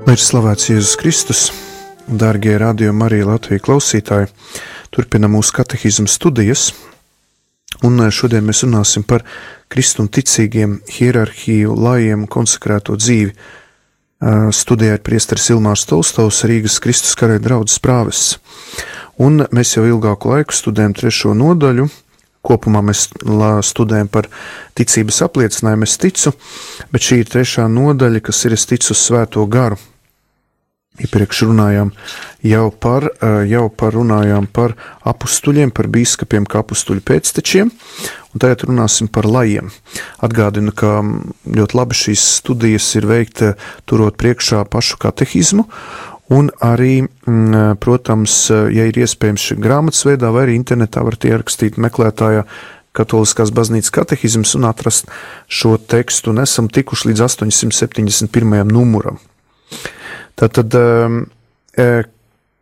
Lai ir slavēts Jēzus Kristus, dārgie Radio Marija Latvija klausītāji, turpinam mūsu katehizmu studijas, un šodien mēs runāsim par kristuma ticīgiem, hierarhiju, lajiem konsekrēto dzīvi. Studijā ir priesteris Ilmārs Tolstovs, Rīgas Kristus karaļa draudzes prāvests, un mēs jau ilgāku laiku studējam 3. nodaļu. Kopumā mēs studējam par ticības apliecinājumu, es ticu, bet šī ir 3. nodaļa, kas ir es ticu uz Svēto garu. Iepriekš runājām runājām par apustuļiem, par bīskapiem kā apustuļu pēctečiem, un tagad runāsim par lajiem. Atgādinu, ka ļoti labi šīs studijas ir veikta turot priekšā pašu katehizmu, un arī, protams, ja ir iespējams grāmatas veidā vai arī internetā varat ierakstīt meklētājā Katoliskās baznīcas katehizms un atrast šo tekstu, un esam tikuši līdz 871. numuram. Tātad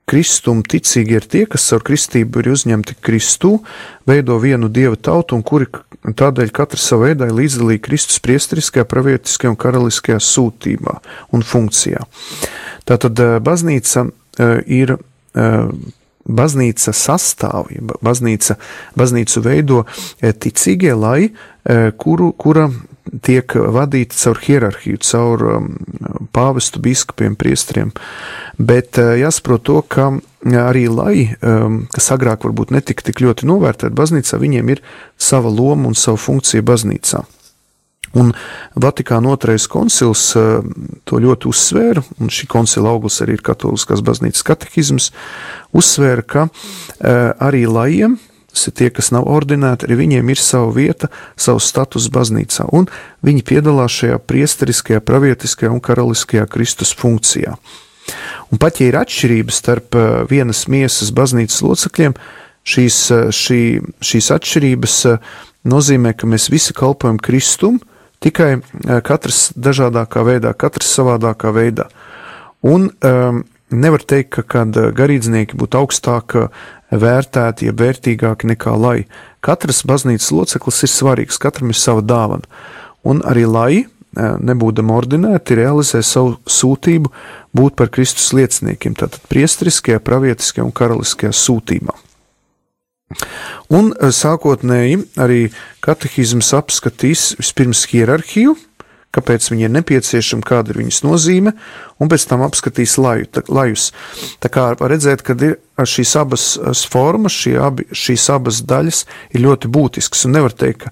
kristum ticīgi ir tie, kas caur kristību ir uzņemti Kristū, veido vienu Dieva tautu, un kuri tādēļ katrs savā veidā ir līdzdalīgi Kristus priesteriskajā, pravietiskajā un karaliskajā sūtībā un funkcijā. Tātad baznīca ir baznīca sastāv, baznīcu veido ticīgie laji, kura tiek vadīta caur hierarhiju, caur pāvestu, bīskapiem, priesteriem, bet jāsaprot to, ka arī laji, kas agrāk varbūt netika tik ļoti novērtēti baznīcā, viņiem ir sava loma un sava funkcija baznīcā. Un Vatikāna 2. koncils to ļoti uzsvēra, un šī koncila auglis arī ir Katoliskās baznīcas katehizms, uzsvēra, ka arī lajiem, tas ir tie, kas nav ordinēti, arī viņiem ir sava vieta, savs status baznīcā, un viņi piedalās šajā priesteriskajā, pravietiskajā un karaliskajā Kristus funkcijā. Un pat, ja ir atšķirības starp vienas miesas baznīcas locekļiem, šīs atšķirības nozīmē, ka mēs visi kalpojam Kristum, tikai katrs dažādākā veidā, katrs savādākā veidā. Un nevar teikt, ka garīdznieki būtu augstāk vērtēti, ja vērtīgāki nekā laji. Katrs baznīcas loceklis ir svarīgs, katram ir sava dāvana. Un arī laji, nebūdam ordinēti, realizē savu sūtību būt par Kristus lieciniekiem, tātad priesteriskajā, pravietiskajā un karaliskajā sūtībā. Un sākotnēji arī katehizms apskatīs vispirms hierarhiju, kāpēc viņi ir nepieciešami, kāda ir viņas nozīme, un pēc tam apskatīs lajus. Tā kā var redzēt, ka ir šīs abas formas, šīs abas daļas ir ļoti būtiskas, un nevar teikt, ka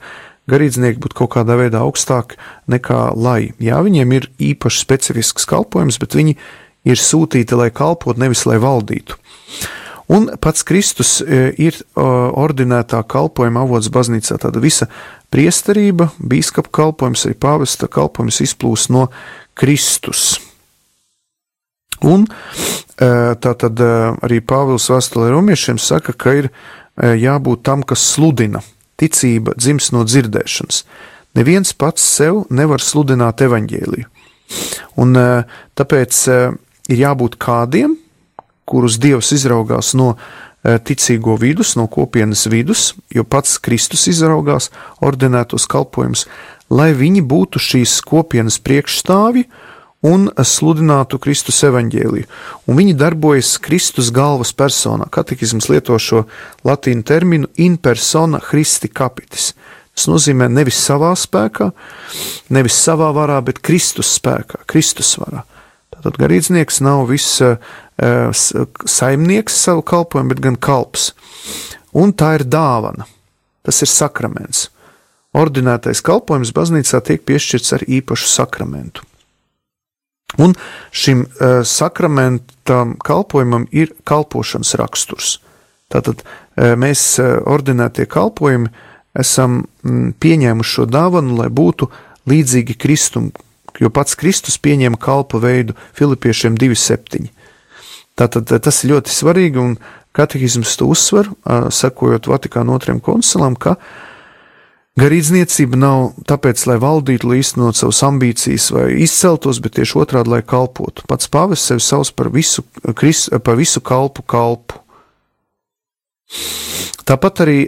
garīdznieki būtu kaut kādā veidā augstāk nekā laji. Jā, viņiem ir īpaši specifisks kalpojums, bet viņi ir sūtīti, lai kalpot, nevis lai valdītu. Un pats Kristus ir ordinētā kalpojuma avots baznīcā, tāda visa priesterība, bīskapa kalpojums, arī pāvesta kalpojums izplūst no Kristus. Un tātad arī Pāvils vēstulē romiešiem saka, ka ir jābūt tam, kas sludina. Ticība dzims no dzirdēšanas. Neviens pats sev nevar sludināt evaņģēliju. Un tāpēc ir jābūt kādiem, kurus Dievs izraugās no ticīgo vidus, no kopienas vidus, jo pats Kristus izraugās ordinētos kalpojumus, lai viņi būtu šīs kopienas priekšstāvi un sludinātu Kristus evaņģēliju. Un viņi darbojas Kristus galvas personā. Katehizms lieto šo latīnu terminu in persona Christi capitis. Tas nozīmē nevis savā spēkā, nevis savā varā, bet Kristus spēkā, Kristus varā. Tātad garīdznieks nav viss saimnieks savu kalpojumu, bet gan kalps. Un tā ir dāvana. Tas ir sakraments. Ordinētais kalpojums baznīcā tiek piešķirts ar īpašu sakramentu. Un šim sakramentam kalpojumam ir kalpošanas raksturs. Tātad mēs ordinētie kalpojumi esam pieņēmuši šo dāvanu, lai būtu līdzīgi Kristum, jo pats Kristus pieņēma kalpa veidu Filipiešiem 2:7. Tātad tas ir ļoti svarīgi, un katehizms to uzsver, sekojot Vatikāna 2. koncilam, ka garīdzniecība nav tāpēc, lai valdītu, lai īstenot savas ambīcijas vai izceltos, bet tieši otrādi, lai kalpotu. Pats pāvests sevi sauc par visu kalpu. Tāpat arī,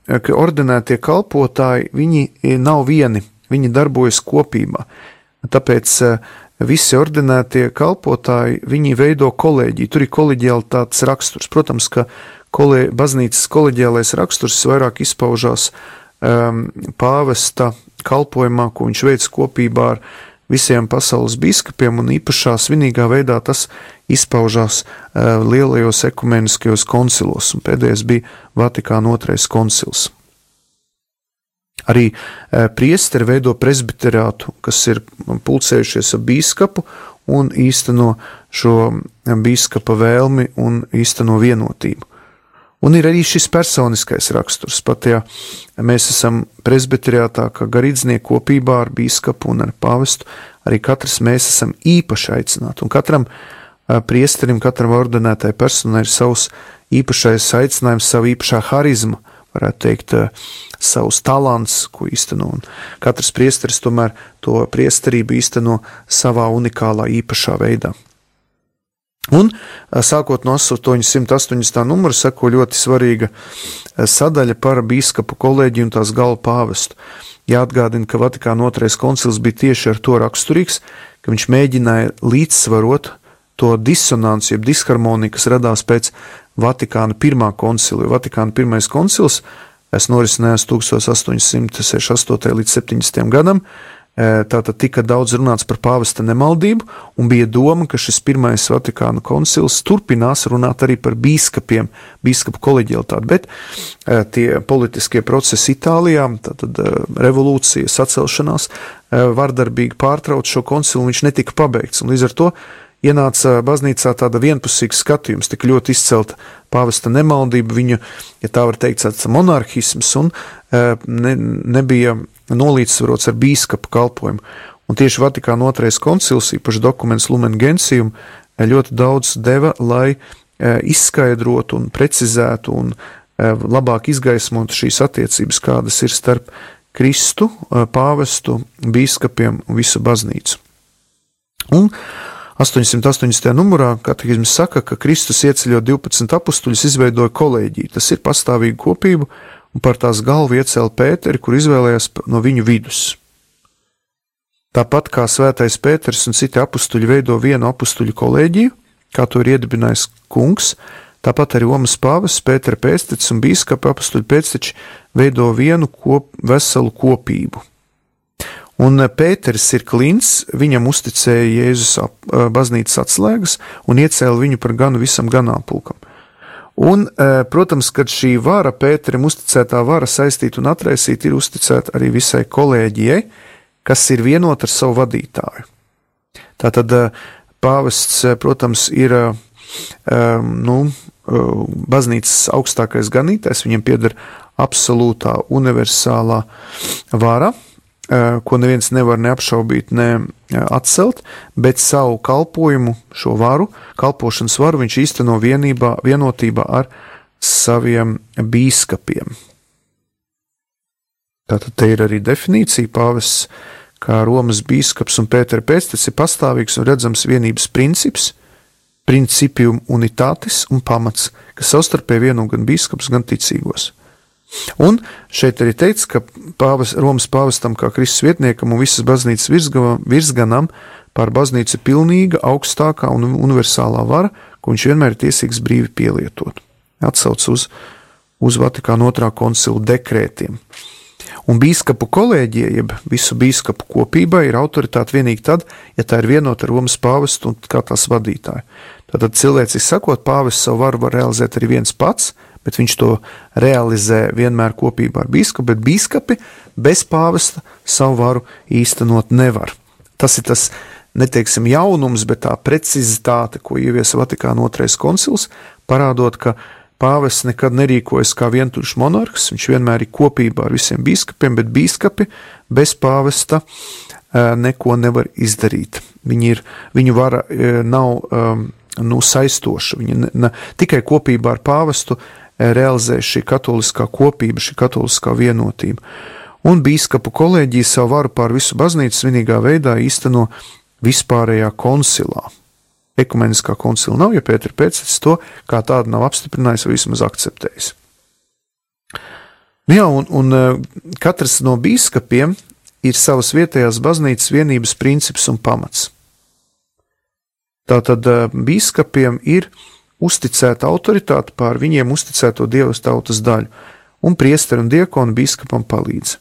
ka ordinētie kalpotāji, viņi nav vieni, viņi darbojas kopībā. Tāpēc visi ordinētie kalpotāji, viņi veido kolēģiju, tur ir koleģialitātes raksturs. Protams, ka baznīcas koleģiālais raksturs vairāk izpaužās pāvesta kalpojumā, ko viņš veic kopībā ar visiem pasaules biskupiem, un īpašā svinīgā veidā tas izpaužās lielajos ekumeniskajos koncilos, un pēdējais bija Vatikāna II koncils. Arī priesteri veido presbiterātu, kas ir pulcējušies ar bīskapu un īsteno šo bīskapa vēlmi un īsteno vienotību. Un ir arī šis personiskais raksturs. Pat ja mēs esam presbiterātā, kā garīdznieki kopībā ar bīskapu un ar pāvestu, arī katrs mēs esam īpaši aicināti. Un katram priesterim, katram ordinētai personai ir savs īpašais aicinājums, savu īpašā harizma, varētu teikt, savus talants, ko īsteno. Un katrs priesteris tomēr to priesterību īsteno savā unikālā īpašā veidā. Un sākot no 880. numura seko ļoti svarīga sadaļa par bīskapu kolēģiju un tās galvu pāvestu. Jāatgādina, ka Vatikāna II koncils bija tieši ar to raksturīgs, ka viņš mēģināja līdzsvarot to disonanci, jeb disharmoniju, kas radās pēc Vatikāna I koncila. Vatikāna I koncils norisinājās 1868. līdz 70. gadam. Tātad tika daudz runāts par pāvesta nemaldību, un bija doma, ka šis pirmais Vatikāna koncils turpinās runāt arī par bīskapiem, bīskapu koleģialitāti, bet tie politiskie procesi Itālijā, tātad revolūcija, sacelšanās, vardarbīgi pārtrauc šo koncilu, un viņš netika pabeigts, un līdz ar to ienāca baznīcā tāda vienpusīga skatījums, tik ļoti izcelta pāvesta nemaldība, viņu, ja tā var teikt, tāds monarhisms, un nebija nolīdzsvarots ar bīskapu kalpojumu. Un tieši Vatikāna II koncils, īpaši dokuments Lumen Gentium, ļoti daudz deva, lai izskaidrotu un precizētu un labāk izgaismotu šīs attiecības, kādas ir starp Kristu, pāvestu, bīskapiem un visu baznīcu. Un 880. numurā katehisms saka, ka Kristus ieceļot 12 apustuļus izveidoja kolēģiju, tas ir pastāvīgu kopību, un par tās galvu iecēla Pēteri, kur izvēlējās no viņu vidus. Tāpat kā svētais Pēters un citi apustuļi veido vienu apustuļu kolēģiju, kā to ir iedibinājis kungs, tāpat arī Romas pāvests, Pētera pēctecis un bīskapa apustuļu pēcteči veido vienu veselu kopību. Un Pēteris ir klints, viņam uzticēja Jēzus baznīcas atslēgas un iecēla viņu par ganu visam ganāmpulkam. Un, protams, kad šī vara, Pēterim uzticētā vara saistīt un atraisīt, ir uzticēta arī visai kolēģijai, kas ir vienota ar savu vadītāju. Tātad pāvests, protams, ir baznīcas augstākais ganītājs, viņam pieder absolūtā universālā vara, ko neviens nevar neapšaubīt, ne atcelt, bet savu kalpojumu, šo varu, kalpošanas varu viņš īsteno vienotībā ar saviem bīskapiem. Tātad te ir arī definīcija, pāvests kā Romas bīskaps un Pētera pēctecis ir pastāvīgs un redzams vienības princips, principium unitatis un pamats, kas savstarpēji vieno gan bīskaps, gan ticīgos. Un šeit arī teikts, ka Romas pāvestam kā Kristus vietniekam un visas baznīcas virsganam pār baznīcu ir pilnīga, augstākā un universālā vara, ko viņš vienmēr ir tiesīgs brīvi pielietot. Atsauc uz Vatikāna II koncila dekrētiem. Un bīskapu kolēģija, jeb visu bīskapu kopībai, ir autoritāte vienīgi tad, ja tā ir vienota ar Romas pāvestu un kā tās vadītāju. Tātad cilvēciski sakot, pāvests savu varu var realizēt arī viens pats, bet viņš to realizē vienmēr kopībā ar bīskapu, bet bīskapi bez pāvesta savu varu īstenot nevar. Tas ir tas, neteiksim, jaunums, bet tā precizitāte, ko ieviesa Vatikāna II koncils, parādot, ka pāvests nekad nerīkojas kā vientuļš monarhs, viņš vienmēr ir kopībā ar visiem bīskapiem, bet bīskapi bez pāvesta neko nevar izdarīt. Viņu vara nav saistoša, viņa tikai kopībā ar pāvestu realizē šī katoliskā kopība, šī katoliskā vienotība. Un bīskapu kolēģija savu varu pār visu baznīcu svinīgā veidā īsteno vispārējā koncilā. Ekumeniskā koncila nav, ja Pētera pēctecis to kā tādu nav apstiprinājis vai vismaz akceptējis. Jā, un katrs no bīskapiem ir savas vietējās baznīcas vienības princips un pamats. Tātad bīskapiem ir uzticēta autoritāte pār viņiem uzticēto dievas tautas daļu, un priesteri un diekoni bīskapam palīdz.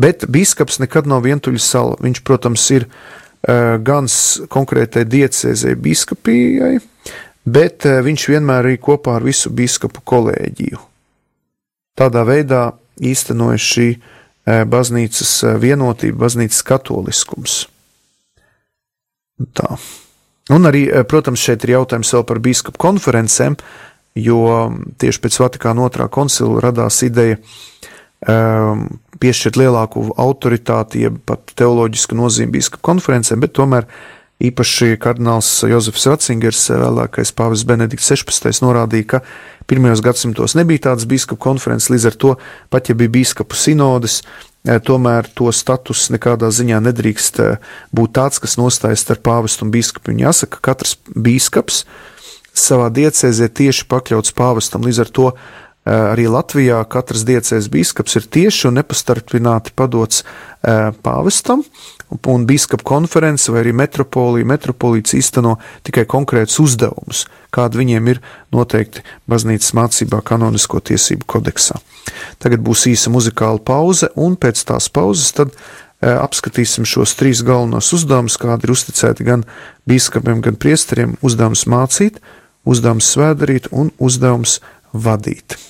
Bet bīskaps nekad nav vientuļa sala. Viņš, protams, ir gan konkrētai diecēzei bīskapijai, bet viņš vienmēr ir kopā ar visu bīskapu kolēģiju. Tādā veidā īstenojas šī baznīcas vienotība, baznīcas katoliskums. Tā. Un arī, protams, šeit ir jautājums vēl par bīskapu konferencēm, jo tieši pēc Vatikāna II koncila radās ideja piešķirt lielāku autoritāti, jeb pat teoloģisku nozīmi bīskapu konferencēm, bet tomēr īpaši kardināls Jozefs Ratzingers, vēlākais pāvests Benedikts 16. norādīja, ka pirmajos gadsimtos nebija tādas bīskapu konferences, līdz ar to, pat ja bija bīskapu sinodes, tomēr to status nekādā ziņā nedrīkst būt tāds, kas nostājas starp pāvestu un bīskapu. Un jāsaka, ka katrs bīskaps savā diecēzē tieši pakļauts pāvestam, līdz ar to arī Latvijā katrs diecēzes bīskaps ir tieši un nepastarpināti padots pāvestam, un bīskapu konference vai arī metropolīts īsteno tikai konkrētus uzdevumus, kādi viņiem ir noteikti baznīcas mācībā kanonisko tiesību kodeksā. Tagad būs īsa muzikāla pauze, un pēc tās pauzes tad apskatīsim šos 3 galvenos uzdevumus, kādi ir uzticēti gan bīskapiem, gan priesteriem: uzdevums mācīt, uzdevums svētdarīt un uzdevums vadīt.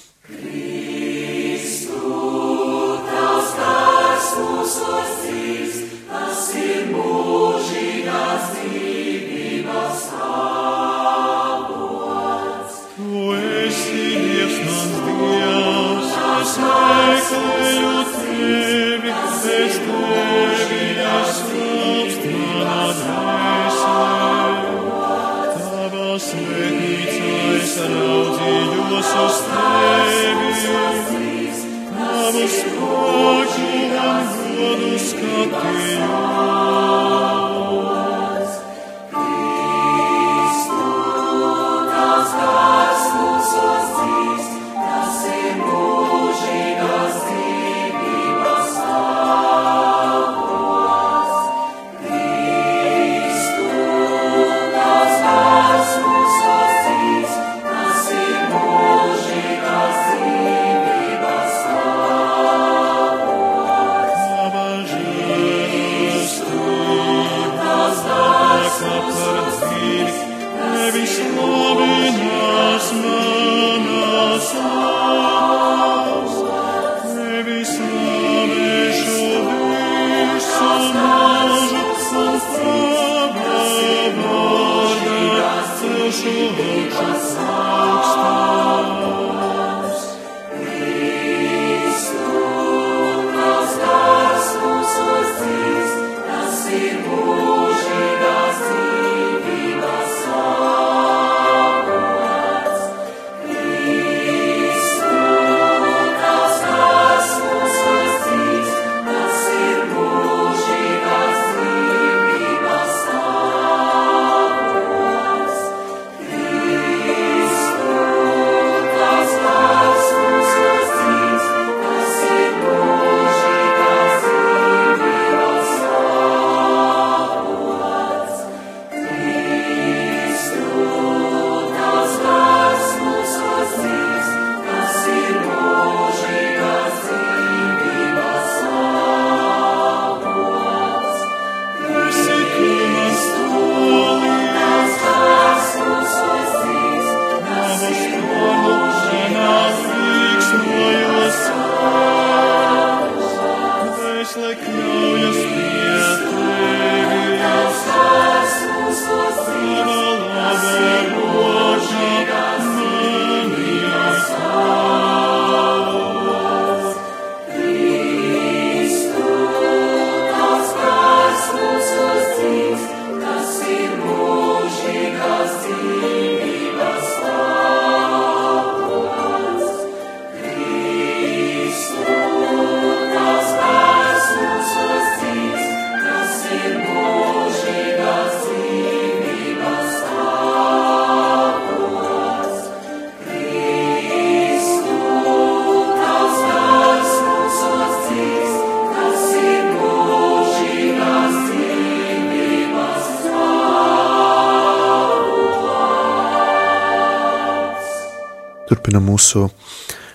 Turpinam mūsu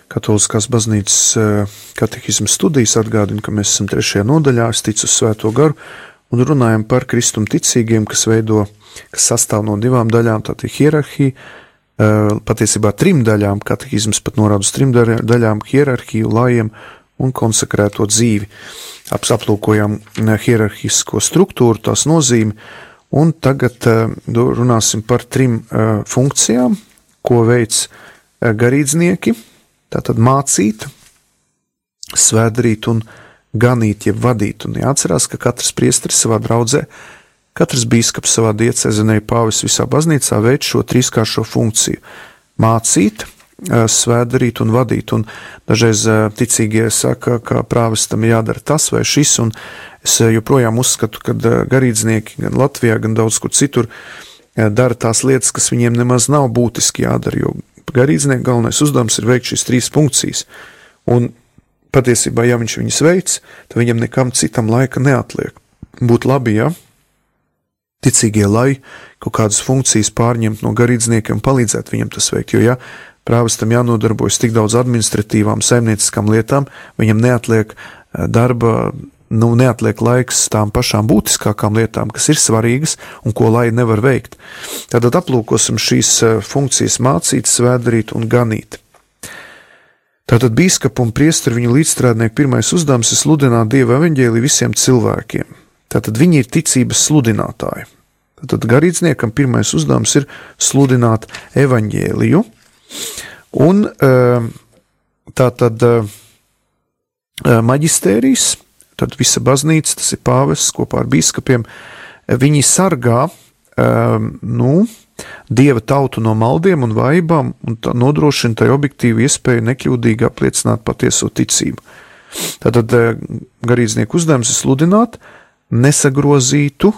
Katoliskās baznīcas katehisma studijas, atgādinu, ka mēs esam 3. nodaļā, es ticu uz Svēto garu, un runājam par kristum ticīgiem, kas sastāv no 2 daļām, tātad hierarhija, patiesībā 3 daļām, katehisms pat norāda uz 3 daļām, hierarhiju, lajiem un konsekrēto dzīvi. Aplūkojam hierarhisko struktūru, tās nozīmi, un tagad runāsim par 3 funkcijām, ko veic garīdznieki, tātad mācīt, svētdarīt un ganīt, jeb vadīt. Un jāatcerās, ka katrs priesteris savā draudzē, katrs bīskaps savā diecēzenē, pāvis visā baznīcā veic šo 3-kāršo funkciju – mācīt, svētdarīt un vadīt. Un dažreiz ticīgie saka, ka prāvestam jādara tas vai šis, un es joprojām uzskatu, ka garīdznieki gan Latvijā, gan daudz kur citur dara tās lietas, kas viņiem nemaz nav būtiski jādara, jo garīdznieku galvenais uzdevums ir veikt šīs 3 funkcijas. Un patiesībā, ja viņš viņas veic, tad viņam nekam citam laika neatliek. Būtu labi, ja ticīgie, lai kaut kādas funkcijas pārņemt no garīdzniekiem un palīdzēt viņam tas veikt, jo ja prāvestam jānodarbojas tik daudz administratīvām, saimnieciskām lietām, viņam neatliek darba, neatliek laiks tām pašām būtiskākām lietām, kas ir svarīgas un ko lai nevar veikt. Tātad aplūkosim šīs funkcijas mācīt, svētdarīt un ganīt. Tātad bīskapu un priesteri viņu līdzstrādnieku pirmais uzdevums ir sludināt Dieva evaņģēliju visiem cilvēkiem. Tātad viņi ir ticības sludinātāji. Tātad garīdzniekam pirmais uzdevums ir sludināt evaņģēliju. Un tātad maģistērijas, tad visa baznīca, tas ir pāvests kopā ar bīskapiem, viņi sargā Dieva tautu no maldiem un vaibām un nodrošina tai objektīvu iespēju nekļūdīgi apliecināt patieso ticību. Tātad garīdznieku uzdevums ir sludināt nesagrozītu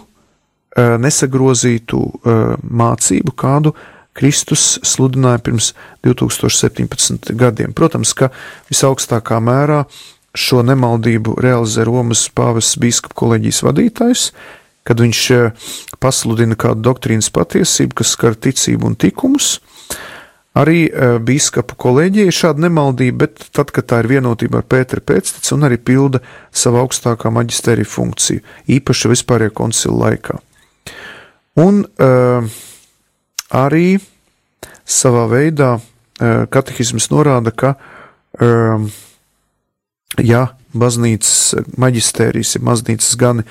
mācību, kādu Kristus sludināja pirms 2017 gadiem. Protams, ka visaugstākā mērā šo nemaldību realizē Romas pāvests bīskapu koleģijas vadītājs, kad viņš pasludina kādu doktrīnas patiesību, kas skar ticību un tikumus. Arī bīskapu koleģija ir šāda nemaldība, bet tad, kad tā ir vienotībā ar Pētera pēcteci un arī pilda savu augstākā maģistērija funkciju, īpaši vispārējā koncila laikā. Un arī savā veidā katehisms norāda, ka ja baznīcas maģistērijas, ja baznīcas gani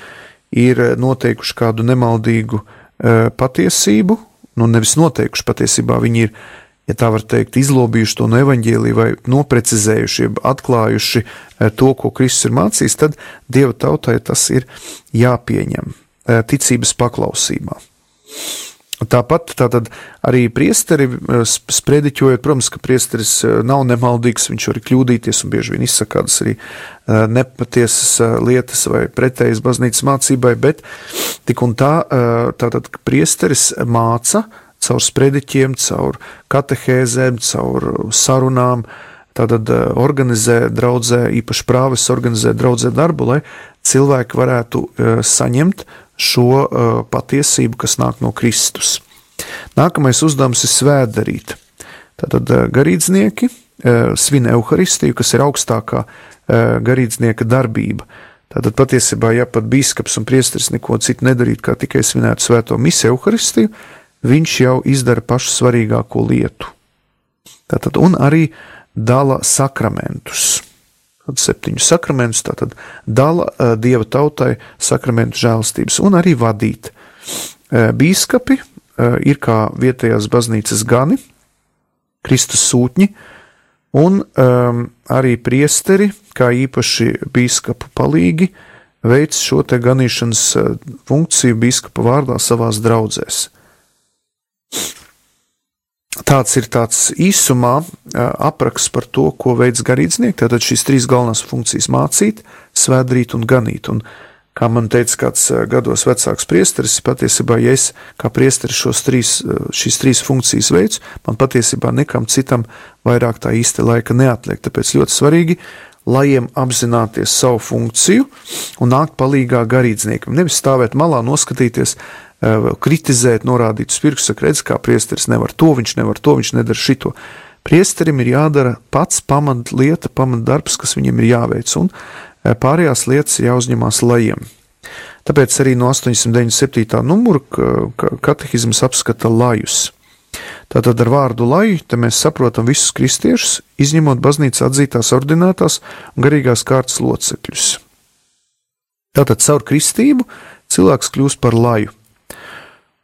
ir noteikuši kādu nemaldīgu patiesību, nevis noteikuši patiesībā, viņi ir, ja tā var teikt, izlobījuši to no evaņģēlija vai noprecizējuši, atklājuši to, ko Kristus ir mācījis, tad Dieva tautai tas ir jāpieņem ticības paklausībā. Tāpat tātad arī priesteri sprediķojot, protams, ka priesteris nav nemaldīgs, viņš var kļūdīties un bieži vien izsaka kādas arī nepatiesas lietas vai pretējas baznīcas mācībai, bet tik un tā, tātad priesteris māca caur sprediķiem, caur katehēzēm, caur sarunām, tātad organizē draudzē, īpaši prāvests organizē draudzē darbu, lai cilvēki varētu saņemt šo patiesību, kas nāk no Kristus. Nākamais uzdevums ir svētdarīt. Tātad garīdznieki svin euharistiju, kas ir augstākā garīdznieka darbība. Tātad patiesībā, ja pat bīskaps un priesteris neko citu nedarīt, kā tikai svinētu svēto misi euharistiju, viņš jau izdara pašu svarīgāko lietu. Tātad un arī dala sakramentus. 7 sakramentus, tātad dala Dieva tautai sakramentu žēlastības un arī vadīt. Bīskapi ir kā vietējās baznīcas gani, Kristus sūtņi, un arī priesteri, kā īpaši bīskapu palīgi, veic šo te ganīšanas funkciju bīskapa vārdā savās draudzēs. Tāds ir tāds īsumā apraksts par to, ko veic garīdznieki, tātad šīs 3 galvenās funkcijas mācīt, svētdarīt un ganīt. Un, kā man teica kāds gados vecāks priesteris, patiesībā, ja es kā priesteris šīs 3 funkcijas veicu, man patiesībā nekam citam vairāk tā īsti laika neatliek. Tāpēc ļoti svarīgi, lajiem apzināties savu funkciju un nākt palīgā garīdzniekam. Nevis stāvēt malā, noskatīties, kritizēt, norādīt uz pirkstu, saka, redz, kā priesteris nevar to, viņš nedara šito. Priesterim ir jādara pats pamatlieta, pamatdarbs, kas viņiem ir jāveic, un pārējās lietas ir jāuzņemās lajiem. Tāpēc arī no 897. numura katehizms apskata lajus. Tātad ar vārdu laju te mēs saprotam visus kristiešus, izņemot baznīcā atzītās ordinētās un garīgās kārtas locekļus. Tātad caur kristību cilvēks kļūst par laju.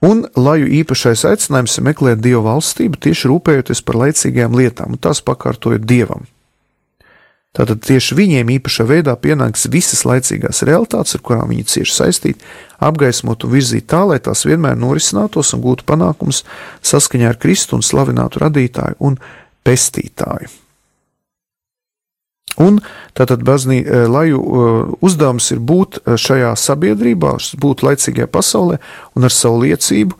Un laju īpašais aicinājums ir meklēt Dieva valstību, tieši rūpējoties par laicīgajām lietām, un tās pakārtojot Dievam. Tātad tieši viņiem īpašā veidā pienāks visas laicīgās realitātes, ar kurām viņi cieši saistīti, apgaismot un virzīt tā, lai tās vienmēr norisinātos un gūtu panākums saskaņā ar Kristu un slavinātu radītāju un pestītāju. Un tātad laju uzdevums ir būt šajā sabiedrībā, būt laicīgajā pasaulē un ar savu liecību,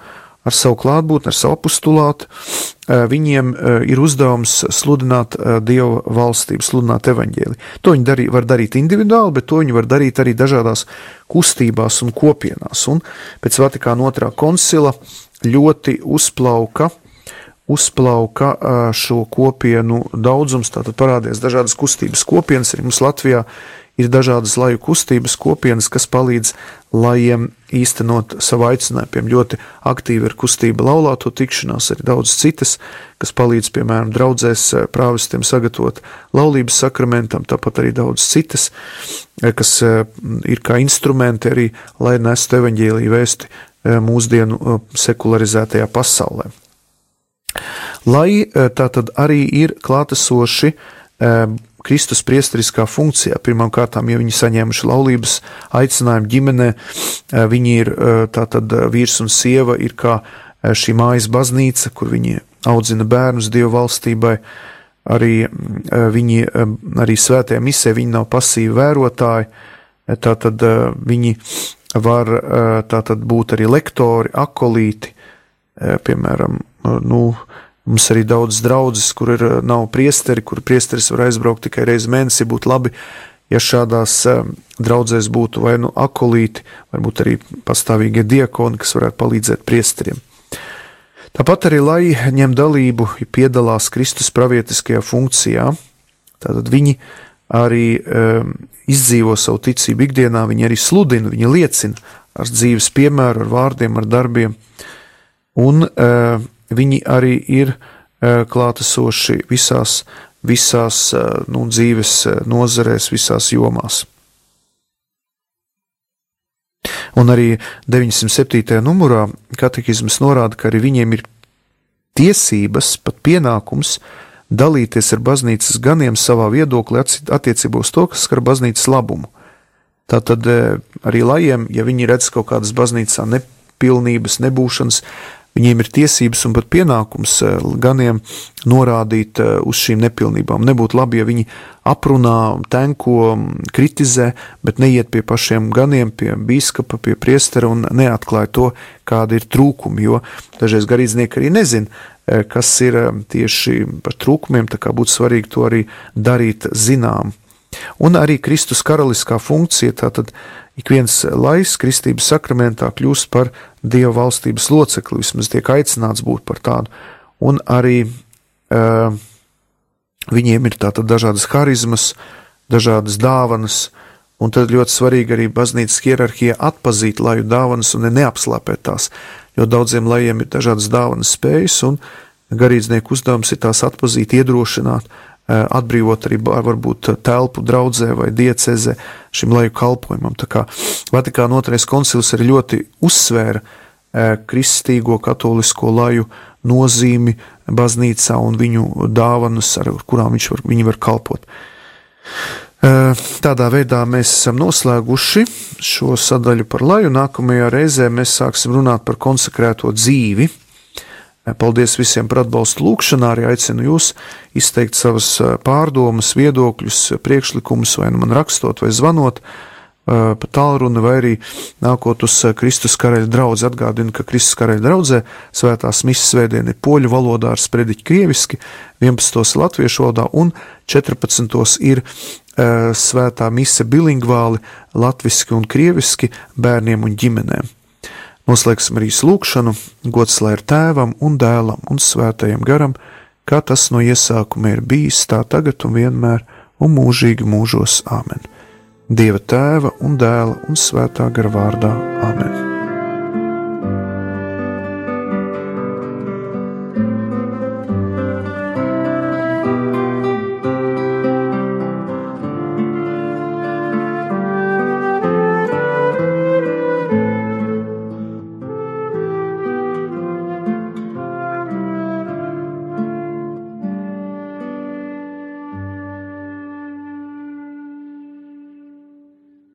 ar savu klātbūtni, ar savu apostulātu. Viņiem ir uzdevums sludināt Dieva valstību, sludināt evaņģēliju. To viņi var darīt individuāli, bet to viņi var darīt arī dažādās kustībās un kopienās. Un pēc Vatikāna 2. koncila ļoti uzplauka šo kopienu daudzums, tātad parādījās dažādas kustības kopienas, arī mums Latvijā ir dažādas laju kustības kopienas, kas palīdz lajiem īstenot savu aicinājumu. Piemēram, ļoti aktīvi ir kustība laulāto tikšanās, arī daudz citas, kas palīdz, piemēram, draudzēs prāvestiem sagatavot laulības sakramentam, tāpat arī daudz citas, kas ir kā instrumenti arī, lai nestu evaņģēliju vēsti mūsdienu sekularizētajā pasaulē. Lai tātad arī ir klātesoši Kristus priesteriskā funkcijā. Pirmām kārtām, ja viņi saņēmuši laulības aicinājumu ģimenē, viņi ir tātad vīrs un sieva ir kā šī mājas baznīca, kur viņi audzina bērnus Dieva valstībai, arī svētajā misē viņi nav pasīvi vērotāji, tātad viņi var tātad būt arī lektori, akolīti, piemēram, mums arī daudz draudzes, kur nav priesteri, kur priesteris var aizbraukt tikai reizi mēnesī. Būtu labi, ja šādās draudzēs būtu vai akolīti, varbūt arī pastāvīgie diakoni, kas varētu palīdzēt priesteriem. Tāpat arī, lai ņem dalību, piedalās Kristus pravietiskajā funkcijā, tātad viņi arī izdzīvo savu ticību ikdienā, viņi arī sludina, viņi liecina ar dzīves piemēru, ar vārdiem, ar darbiem, un viņi arī ir klātesoši visās dzīves nozarēs, visās jomās. Un arī 907. numurā katehizms norāda, ka arī viņiem ir tiesības, pat pienākums dalīties ar baznīcas ganiem savā viedoklī attiecībā uz to, kas skar baznīcas labumu. Tātad arī lajiem, ja viņi redz kaut kādas baznīcā nepilnības, nebūšanas, viņiem ir tiesības un pat pienākums ganiem norādīt uz šīm nepilnībām. Nebūtu labi, ja viņi aprunā, tenko, kritizē, bet neiet pie pašiem ganiem, pie bīskapa, pie priestera un neatklāja to, kādi ir trūkumi, jo dažreiz garīdznieki arī nezin, kas ir tieši par trūkumiem, tā kā būtu svarīgi to arī darīt zinām. Un arī Kristus karaliskā funkcija, tātad ik viens laiss kristības sakramentā kļūst par Dieva valstības locekli, vismaz tiek aicināts būt par tādu. Un arī viņiem ir tātad dažādas harizmas, dažādas dāvanas, un tad ļoti svarīgi arī baznīcas hierarhija atpazīt laju dāvanas un neapslāpēt tās, jo daudziem lajiem ir dažādas dāvanas spējas, un garīdznieku uzdevums ir tās atpazīt, iedrošināt, atbrīvot arī varbūt telpu draudzē vai diecezē šim laju kalpojumam. Tā kā Vatikāna 2. koncils arī ļoti uzsvēra kristīgo katolisko laju nozīmi baznīcā un viņu dāvanas, ar kurām viņi var kalpot. Tādā veidā mēs esam noslēguši šo sadaļu par laju. Nākamajā reizē mēs sāksim runāt par konsekrēto dzīvi. Paldies visiem par atbalstu lūkšanā, arī aicinu jūs izteikt savas pārdomas, viedokļus, priekšlikumus, vai nu man rakstot, vai zvanot pa tālruni, vai arī nākot uz Kristus karaļa draudzi. Atgādinu, ka Kristus karaļa draudzē svētās misas svētdien ir poļu valodā ar sprediķi krieviski, 11. latviešu valodā un 14. ir svētā mise bilingvāli latviski un krieviski bērniem un ģimenēm. Noslēgsim arī lūkšanu, gods lai ir Tēvam un Dēlam un Svētajam garam, kā tas no iesākuma ir bijis, tā tagad un vienmēr un mūžīgi mūžos. Āmen. Dieva Tēva un Dēla un Svētā gara vārdā.